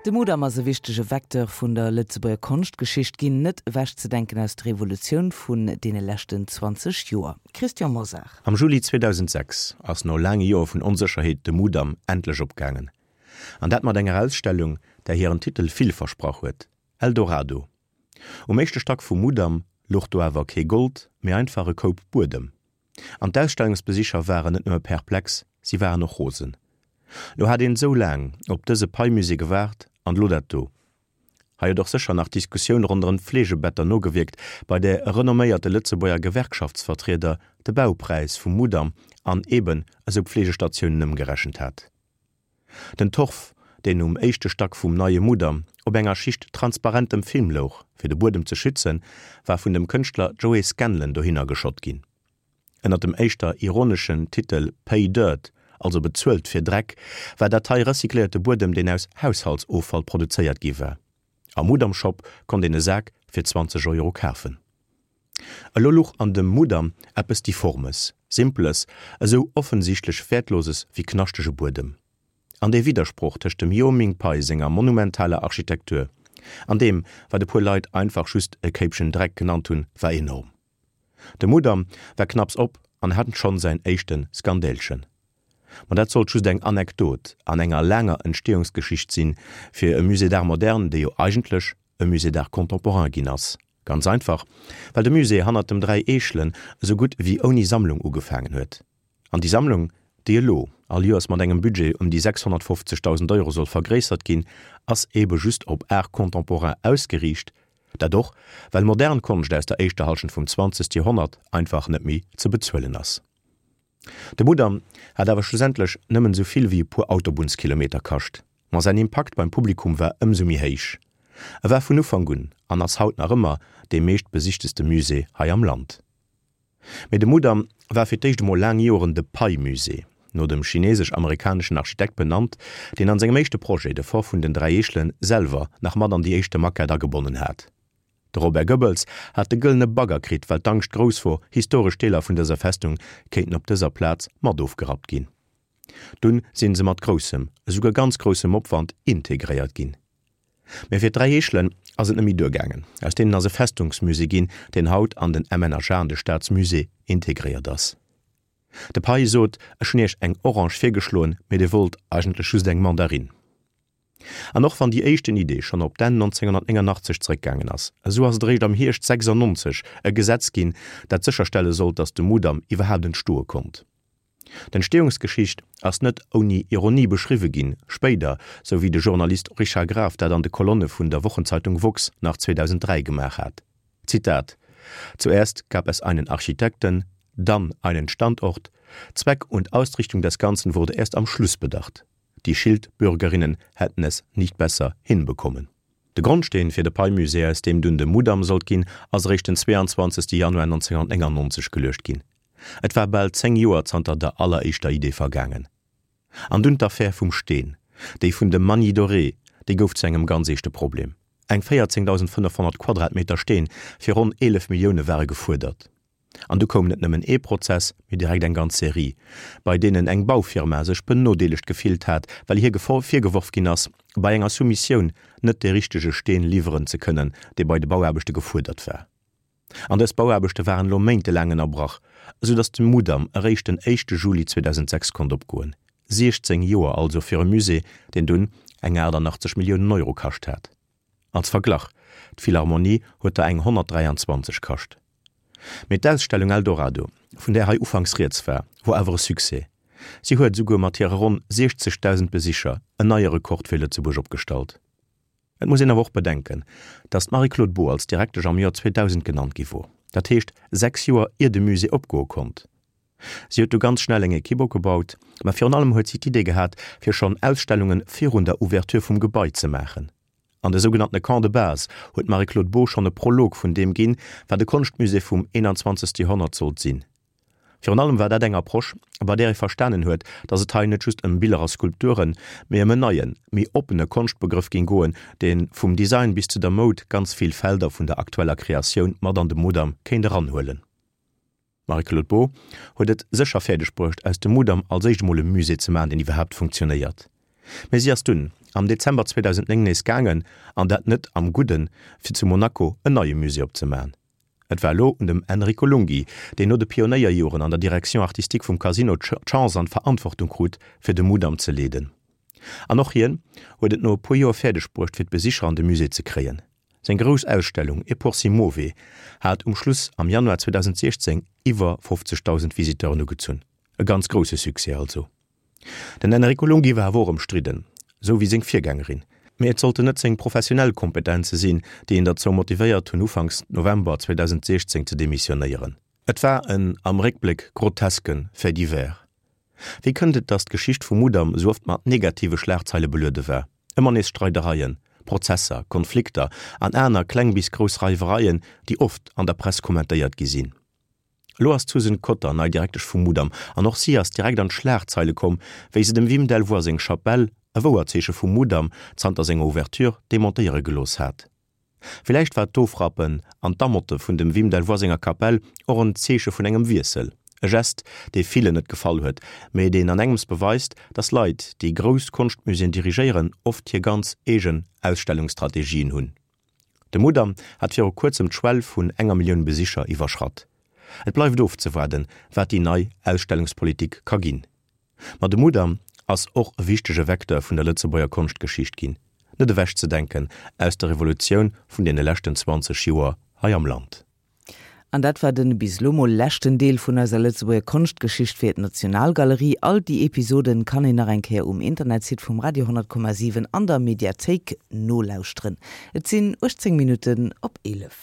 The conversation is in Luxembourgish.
De Mudam ass e wichtege Vecteur vun der Lëtzebuerger Konschtgeschicht ginn, net ewechzedenken aus der Evolutioun vun deene leschten 20 Joer. Christian Mosar. Am Juli 2006 ass no laange Joer vun Onsécherheet de Mudam endlech opgaangen. An dat mat enger Ausstellung, där hiren Titel vill versprach huet, Eldorado. Um éischte Stack vum Mudam louch do awer kee Gold, mee einfach e Koup Buedem. An d'Ausstellungsbesicher waren net nëmme perplex, si waren och rosen. Lo hat een esou laang op dëse Pei-Musée gewaart, an elo dat do. Hei huet och sécher nach d'Diskussioun ronderëm d'Fleegebetter nogewierkt, bei där e renomméierte Lëtzebuerger Gewerkschaftsvertrieder de Baupräis vum Mudam an eben esou Pflegestatiounen ëmgerechent hat. Den Torf, deen um éischte Stack vum neie Mudam op enger Schicht transparentem Film louch, fir de Buedem ze schützen, war vun dem Kënschtler Joey Scanlon dohinner geschott ginn. Ënner dem éischter ironeschen Titel Pay Dirt, also bezuelt fir Dreck, war dat hei recycléierte Buedem, deen aus Haushaltsoffall produzéiert gi war. Am Mudam-Shop konnt een e Sak fir 20 Euro kafen. Elo luch an dem Mudam eppes Difformes, Simples, esou offensichtlech Wäertloses wéi knaschtege Buedem. An dee Widdersproch tëscht dem Io Ming Pei senger monumentaler Architektur an deem, wat e puer Leit einfach just e Kéipchen Dreck genannt hunn, war enorm. De Mudam war knapps op an hat schonn säin éischte Skandälchen. Ma dat sollt just eng Anekdot an enger laanger Entstehungsgeschicht sinn, fir e Musée d'art moderne, dee jo eigentlech e Musée d'art contemporain ginn ass. Ganz einfach, well de Musée hannert dem Dräi Eechelen esou gutt wéi ouni Sammlung ugefaangen huet. An déi Sammlung, déi elo all Joers mat engem Budget ëm déi 650.000 Euro soll vergréissert ginn, ass eebe just op Art contemporain ausgeriicht. Dat och, well modern Konscht aus der éischter Hallschent vum 20. Joerhonnert einfach net méi ze bezuelen ass. De Mudam hat awer schlussendlech nëmmen esou vill wéi e puer Autobunnskilometer kascht, ma säin Impakt beim Publikum war ëmsou méi héich. E war vun Ufank un an ass haut nach ëmmer dee meescht besichteste Musée hei am Land. Mee de Mudam war fir d'éischt emol laang Joeren de Pei-Musée, no dem chinesesch-amerikaneschen Architekt benannt, deen an sengem éischte Projet, de Fort vun den 3 Eechelen, selwer nach mat an déi éischte Maquette agebonnen hat. De Robert Goebbels hat de gëllene Bagger kritt, well d'Angscht grouss wor, historesch Deeler vun dëser Festung kéinten op dëser Plaz mat ofgerappt ginn. Dunn sinn se mat groussem, esouguer ganz groussem Opwand integréiert ginn. Mä fir d'Dräi Eechelen ass et net méi duergaangen. Aus deenen ass e Festungsmusée ginn, deen haut an den MNHA, an de Staatsmusée, integréiert ass. De Pei sot, Ech hunn iech eng Orange virgeschloen, mee dir wollt eigentlech just eng Mandarinn. An och wann déi éischten Idee schonn op d'Enn 1989 zeréckgaangen ass, esou ass et eréischt am Hierscht 96 e Gesetz ginn, dat sécherstelle sollt, datt de Mudam iwwerhaapt entstoe konnt. D'Entstehungsgeschicht ass net ouni Ironie beschriwwe ginn, spéider, sou wéi de Journalist Richard Graf dat an de Kolonne vun der Wochenzeitung woxx nach 2003 gemaach hat, Zitat, Zuerst gab es einen Architekten, dann einen Standort, Zweck und Ausrichtung des Ganzen wurde erst am Schluss bedacht. Die Schildbürgerinnen hätten es nicht besser hinbekommen. De Grondsteen fir de Pei-Musée, aus deem dunn de Mudam sollt ginn, ass eréischt den 22. Januar 1999 geluecht ginn. Et war bal 10 Joer zanter der alleréischter Idee vergaangen. An dunn d'Affär vum Steen, déi vun dem Magny Doré, déi gouf zu engem ganz eeschte Problem. Eng 14.500 Quadratmeter Steen fir ronn 11 Millioune ware gefuerdert. An du koum net nëmmen ee Prozess, mee direkt eng ganz Serie, bei deenen eng Baufirma sech benodeelegt gefillt hat, well hir virgeworf ginn ass, bei enger Soumissioun net dee richtege Steen liwweren ze kënnen, dee bei de Bauaarbechte gefuerdert war. An dës Bauaarbechte waren elo méintelaang ënnerbrach, esou datt de Mudam eréischt den éischte Juli 2006 konnt opgoen. 16 Joer also fir e Musée, deen dunn eng 88 Milliounen Euro kascht hat. Als Verglach, D'Philharmonie huet der eng 123 kascht. Mee d'Ausstellung Eldorado, vun där hei ufanks rieds war, wor awer e Succès. Si huet esouguer mat hire ronn 60.000 Besicher en neie Rekord fir Lëtzebuerg opgestallt. Et muss een awer och bedenken, datt d'Marie-Claude Beaud als Direktesch am Joer 2000 genannt gi wor, dat heescht 6 Joer ier de Musée opgoe konnt. Si huet du ganz schnell eng Ekipp opgebaut, ma virun allem huet si d'Idee gehat, fir schonn Ausstellunge virun der Ouverture vum Gebai ze maachen. An de sougenanntene Camps de base huet d'Marie-Claude Beaud schonn e Prolog vun deem ginn, wat e Konschtmusée vum 21. Joerhonnert sollt sinn. Virun allem war dat eng Approche, bei där ee verstanen huet, datt et hei net just ëm Biller a Skulpturen, mee ëm en neien, méi oppene Konschtbegrëff géing goen, dee vum Design bis zu der Moud ganz vill Felder vun der aktueller Kreatioun mat an de Mudam kéint eranhuelen. D'Marie-Claude Beaud huet et sécher fäerdeg bruecht, aus dem Mudam als éischt emol e Musée ze maachen, deen iwwerhaapt funktionéiert. Mee si ass dunn am Dezember 2009 nees gaangen, an dat net am Gudden, fir zu Monaco en neie Musée opzemaen. Et war elo un dem Enrico Lunghi, deen no de Pionéierjoren an der Direction artistique vum Casino d'Chance an d'Verantwortung krut, fir de Mudam ze leeden. An och hien huet et no e puer Joer fäerdeg bruecht, fir d'Besicher an de Musée ze kréien. Seng grouss Ausstellung E pur si muove hat um Schluss am Januar 2016 iwwer 50.000 Visiteuren ugezunn. E ganz grousse Succès also. Den Enrico Lunghi war awer och ëmstridden, sou wéi seng Virgängerin. Mee et sollten net seng professionell Kompetenze sinn, déi en derzou motivéiert hunn, ufanks November 2016 ze demissionéieren. Et war en am Réckbléck groteske Fait divers. Wéi kënnt et, datt d'Geschicht vum Mudam sou oft mat negative Schlagzeile beluede war? Ëmmer nees Streidereien, Prozesser, Konflikter an aner kleng bis grouss Reiwereien, déi oft an der Press kommentéiert gi sinn. Elo ass d'Susan Cotter nei Direktesch vum Mudam an och si ass direkt an d'Schlagzeile komm, wéi se dem Wim Delvoye seng Chapelle, e Wouerzeeche vum Mudam, zanter senger Ouverture demontéiere gelooss hat. Villäicht war d'Ofrappen an d'Amotte vun dem Wim Delvoye senger Kapell och en Zeeche vun engem Wiessel, e Gest, dee villen net gefall huet, mee deen an engems beweist, datt Leit, déi grouss Konschtmuséeën dirigéieren, oft hir ganz eegen Ausstellungsstrategien hunn. De Mudam hat viru kuerzem d'Schwell vun enger Millioun Besicher iwwerschratt. Et bleift ofzewaarden, wat déi nei Ausstellungspolitik ka ginn. Ma de Mudam ass och e wichtege Vecteur vun der Lëtzebuerger Konschtgeschicht ginn, net ewechzedenken aus der Revolutioun vun deene leschten 20 Joer hei am Land. An dat war den bis elo mol leschten Deel vun eiser Lëtzebuerger Konschtgeschicht fir d'Nationalgalerie. All déi Episoden kann een nach eng Kéier um Internetsite vum Radio 10,7 an der Mediathéik nolauschteren. Et sinn 18 Minutten op 11.